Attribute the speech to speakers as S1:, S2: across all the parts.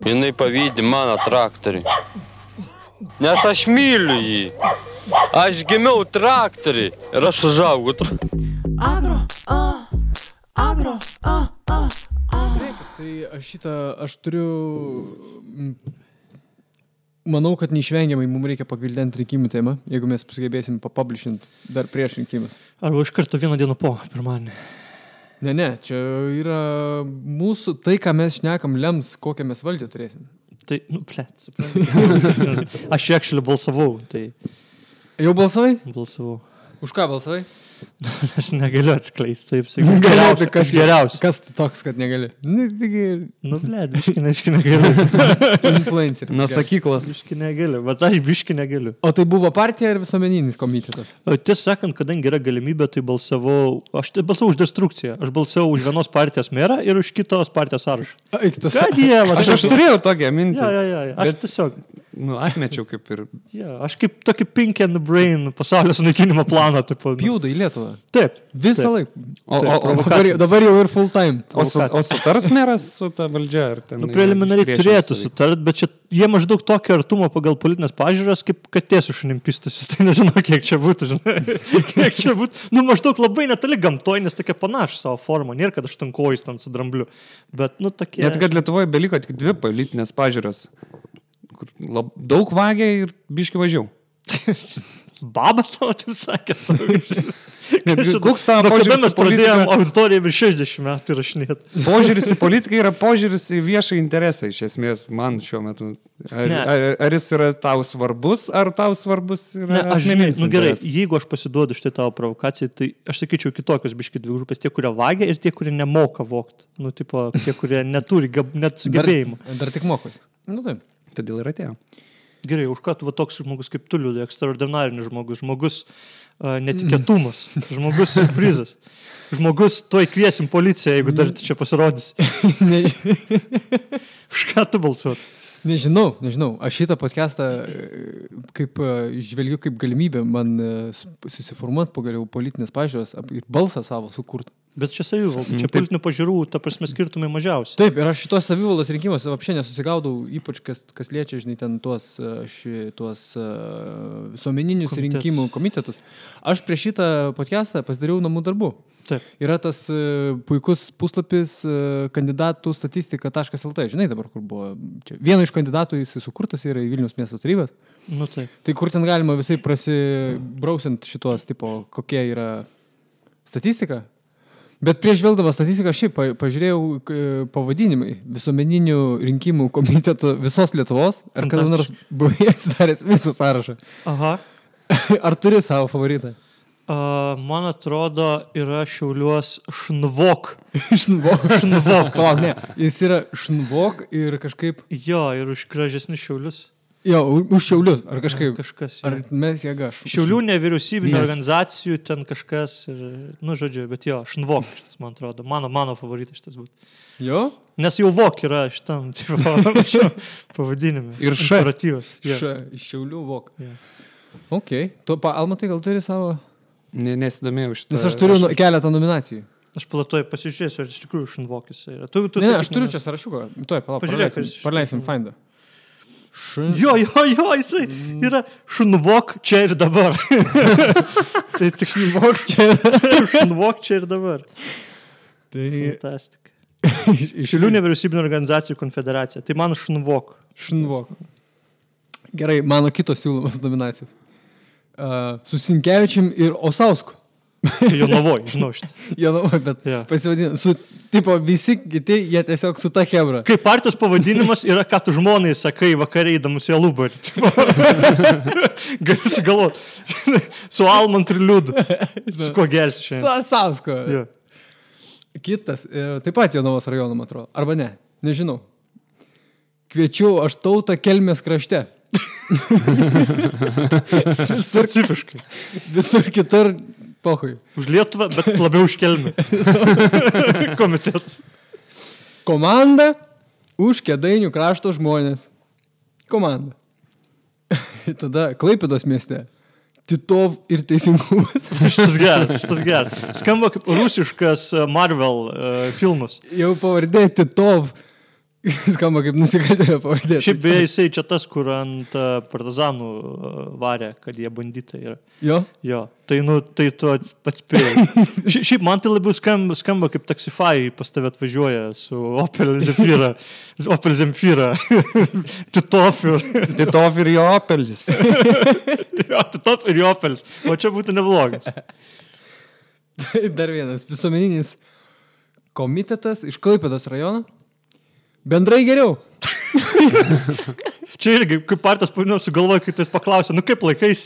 S1: Jinai pavydi mano traktoriui. Nes aš myliu jį. Aš gimiau traktoriui ir aš užaugau.
S2: Agro.
S3: Tai aš turiu... Manau, kad neišvengiamai mums reikia pagvildenti rinkimų temą, jeigu mes sugebėsim papublishinti dar prieš rinkimus.
S2: Arba iš karto vieną dieną po, pirmadienį.
S3: Ne, čia yra mūsų, tai, ką mes šnekam, lems, kokią mes valdžią turėsim.
S2: Tai, suprantu. Aš actually balsavau, tai...
S3: Jau balsavai?
S2: Balsavau.
S3: Už ką balsavai?
S2: Aš negaliu atskleisti, taip sakyti.
S3: Kas
S2: geriausias?
S3: Kas toks, kad negali?
S2: Biški negaliu.
S3: Influencer.
S4: Nuo sakyklos.
S2: Biški negaliu, bet aš biški negaliu.
S3: O tai buvo partija ar visuomeninis komitetas?
S2: Tiesą sakant, kadangi yra galimybė, tai aš balsavau už destrukciją. Aš balsavau už vienos partijos merą ir už kitos partijos sąrašą.
S3: Ką
S2: dievą?
S4: Aš turėjau tokią mintį.
S2: Ja. Aš tiesiog...
S4: Atmečiau kaip ir...
S2: Ja, aš kaip tokį pink and brain pasaulio sunaikinimo planą.
S3: Pjūda į Lietuvą.
S2: Taip.
S3: Visą laiką.
S2: Taip,
S3: dabar jau ir full time.
S4: O sutars meras su ta valdžia?
S2: Preliminariai turėtų sutart, bet čia jie maždaug tokio artumo pagal politinės pažiūros, kaip katė su šunim pistusi. Tai nežinau, kiek čia būtų, kiek čia būtų. Maždaug labai netoli gamtoj, nes tokia panaši savo formą. Nėra, kad aš tankojus ten su drambliu. Bet, tokie...
S4: Net kad Lietuvoje beliko tik 2 politinės pažiūros. Daug vagia ir biški važiau.
S2: Baba tavo, taip sakė.
S4: Koks tavo požiūris
S2: mes pradėjom auditoriją virš 60 metų rašinėti.
S4: Požiūris į politiką yra požiūris į viešą interesą, iš esmės, man šiuo metu. Ar jis yra tau svarbus, ar tau svarbus yra asmeninis interesas?
S2: Gerai, jeigu aš pasiduodu štai tavo provokacijai, tai aš sakyčiau kitokios biški dvi grupės, tie, kurie vagia ir tie, kurie nemoka vogti. Tie, kurie neturi net sugebėjimų.
S3: Dar tik mokos. Taip.
S4: Todėl ir atėjo.
S2: Gerai, už ką tu toks žmogus kaip tu liūdai, ekstraordinarinis žmogus netikėtumas, žmogus surprizas, žmogus tuoj kviesim policiją, jeigu dar čia pasirodys. Už ką tu balsuot?
S3: Nežinau. Aš šitą podcastą žvelgiu kaip galimybę man susiformuoti pagaliau politinės pažiūros ir balsą savo sukurti.
S2: Bet čia savivalda, čia politinių pažiūrų, ta prasme, skirtumai mažiausiai.
S3: Taip, ir aš šitos savivaldos rinkimuose apšiai nesusigaudau, ypač kas liečia, žinai, ten tuos visuomeninius rinkimų komitetus. Aš prieš šitą podcastą pasidariau namų darbų.
S2: Taip.
S3: Yra tas puikus puslapis kandidatų statistika.lt. Žinai dabar, kur buvo čia. Vieno iš kandidatų jis sukurtas yra į Vilniaus miesto tarybas.
S2: Taip.
S3: Tai kur ten galima visai prasibrausiant šitos tipo, kokie yra statistika. Bet prieš žvelgdamas statistiką šiaip pažiūrėjau pavadinimai visuomeninių rinkimų komitetų visos Lietuvos. Ar kada nors buvai atsidaręs visą sąrašą?
S2: Aha.
S3: Ar turi savo favoritą?
S2: Man atrodo, yra Šiauliuos Šnvok.
S3: Šnvok. Palauk, ne. Jis yra Šnvok ir kažkaip...
S2: Jo, ir už gražesnius Šiaulius.
S3: Jo, už Šiaulius. Ar kažkaip...
S2: Kažkas.
S3: Ar mes jėga?
S2: Šiaulių nevyriausybinio organizacijų ten kažkas ir... žodžiu, bet jo, Šnvok šitas, man atrodo. Mano favoritas šitas būtų.
S3: Jo?
S2: Nes jau Vok yra šitam pavadinime.
S4: Ir Š.
S3: Iš Šiaulių Vok. Ok. Tu, Almatai, gal turi savo...
S4: Nesidomėjau šitą.
S3: Nes aš turiu keletą nominacijų.
S2: Aš platuoju pasižiūrėsiu, ar iš tikrųjų Šnvokis yra.
S3: Ne, aš turiu čia sąrašiuką. Tuoj, praleisim Findą.
S2: Jo, jisai yra Šnvok čia ir dabar. Tai tik Šnvok čia ir dabar.
S3: Tai...
S2: Fantastika. Šiaulių nevyriausybinio organizacijų konfederacija. Tai man Šnvok.
S3: Gerai, mano kitos siūlomas nominacijos. Su Sinkevičium ir Osausku.
S2: Jonavoj, žinau šitą.
S3: Jonavoj, bet pasivadina. Tipo, visi kiti, jie tiesiog su ta chebra.
S2: Kaip partijos pavadinimas yra, ką tu žmonai sakai vakariai įdamus į Alubarį. Gali galvoti. Su Almant ir Liudu. Su kuo gersi šiandien?
S3: Su Osausko. Kitas, taip pat Jonavos rajono, man atrodo. Arba ne, nežinau. Kviečiu aš tautą Kelmės krašte.
S2: Specifiškai.
S3: Visur kitur pohui.
S2: Už Lietuvą, bet labiau už Kelmę. Komitetas.
S3: Komanda už Kėdainių krašto žmonės. Komanda. Tada Klaipėdos mieste. Titov ir teisingumas.
S2: Šitas geras. Skamba kaip rusiškas Marvel filmas.
S3: Jau pavardė Titov. Skamba kaip nusikaltėlio pavardė.
S2: Šiaip beje, jisai čia tas, kur ant partizanų varė, kad jie banditai yra.
S3: Jo?
S2: Jo. Tai, tai tu pats spėjai. Šiaip man tai labiau skamba kaip taksifai pas tave atvažiuoja su Opel Zafira. Opel Zemfira.
S4: Titov ir jo Opelis.
S2: Jo, Titov ir jo Opelis. O čia būtų neblogas.
S3: Dar vienas visuomeninis komitetas iš Klaipėdos rajono. Bendrai geriau.
S2: Čia irgi, kaip partijos pavadinimas sugalvoja, kai tas paklausė, kaip laikais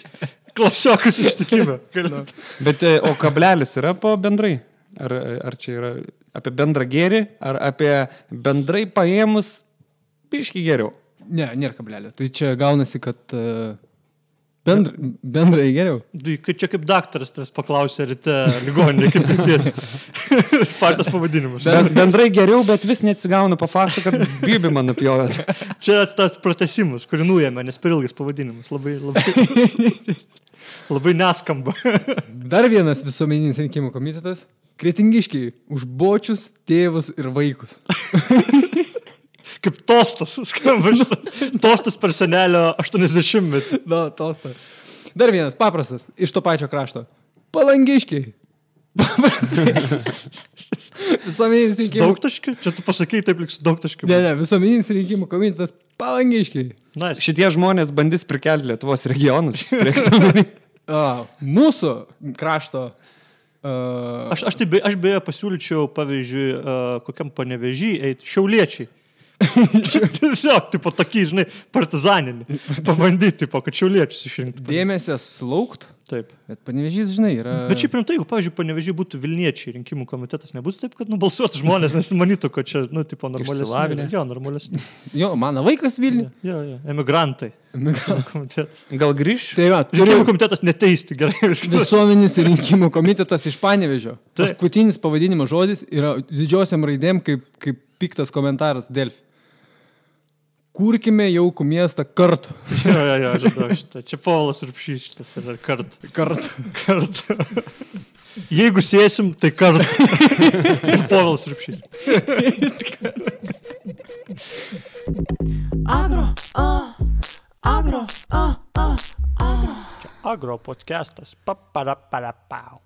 S2: klasiokus ištikime.
S4: Bet o kablelis yra po bendrai? Ar čia yra apie bendrą gėrį, ar apie bendrai paėmus biškį geriau?
S3: Ne, nėra kablelio. Tai čia gaunasi, kad bendrai geriau.
S2: Čia kaip daktaras tas paklausė ryte ligoninė, kaip ryties. Partijos pavadinimas.
S4: Bendrai geriau, bet vis neatsigauna po fakto, kad Bibi man nupjovėt.
S2: Čia tas pratesimas, kurį nuėmė, nes per ilgas pavadinimas. Labai neskamba.
S3: Dar vienas visuomeninis rinkimų komitetas. Kretingiškiai už bočius, tėvus ir vaikus.
S2: Kaip tostas, skamba šitą. Tostas per senelio 80-metį.
S3: Na, tostas. Dar vienas, paprastas, iš to pačio krašto. Palangiškiai. Paprastai. Visuomeninis rinkimų...
S2: Daugtaškiai? Čia tu pasakei taip, lyg su daugtaškiu.
S3: Ne, visuomeninis rinkimų komitetas Palangiškiai.
S2: Nice.
S4: Šitie žmonės bandys prikelti Lietuvos regionus.
S3: Mūsų krašto...
S2: Aš beje pasiūlyčiau, pavyzdžiui, kokiam Panevėžy eiti šiauliečiai. Tiesiog, tipo, tokį, žinai, partizaninį. Pabandyti, tipo, kad šiauliečius išrinkti.
S3: Dėmesio sulaukt.
S2: Taip.
S3: Bet Panevėžys, žinai, yra...
S2: Bet šiaip rimtai, jeigu, pavyzdžiui, Panevėžy būtų Vilniečiai rinkimų komitetas, nebūtų taip, kad nubalsuotų žmonės, nes manytų, kad čia, tipo, normalesni. Jo, normalesni.
S3: Jo, mano vaikas Vilniuje.
S2: Jo, emigrantai. Komitetas.
S4: Gal grįš?
S3: Tai va,
S2: rinkimų komitetas neteisti, gerai.
S3: Visuomenės rinkimų komitetas iš Panevėžio. Paskutinis pavadinimo žodis yra didžiosiam raidėm kaip piktas komentaras Delfi. Kurkime jaukų miestą kartu.
S2: Jo, žinau šitą. Čia Povilas Urbšys šitas yra kartu. Kartu. Jeigu sėsim, tai kartu. Ir Povilas Urbšys. Agro. Čia Agro podcastas. Paparapau.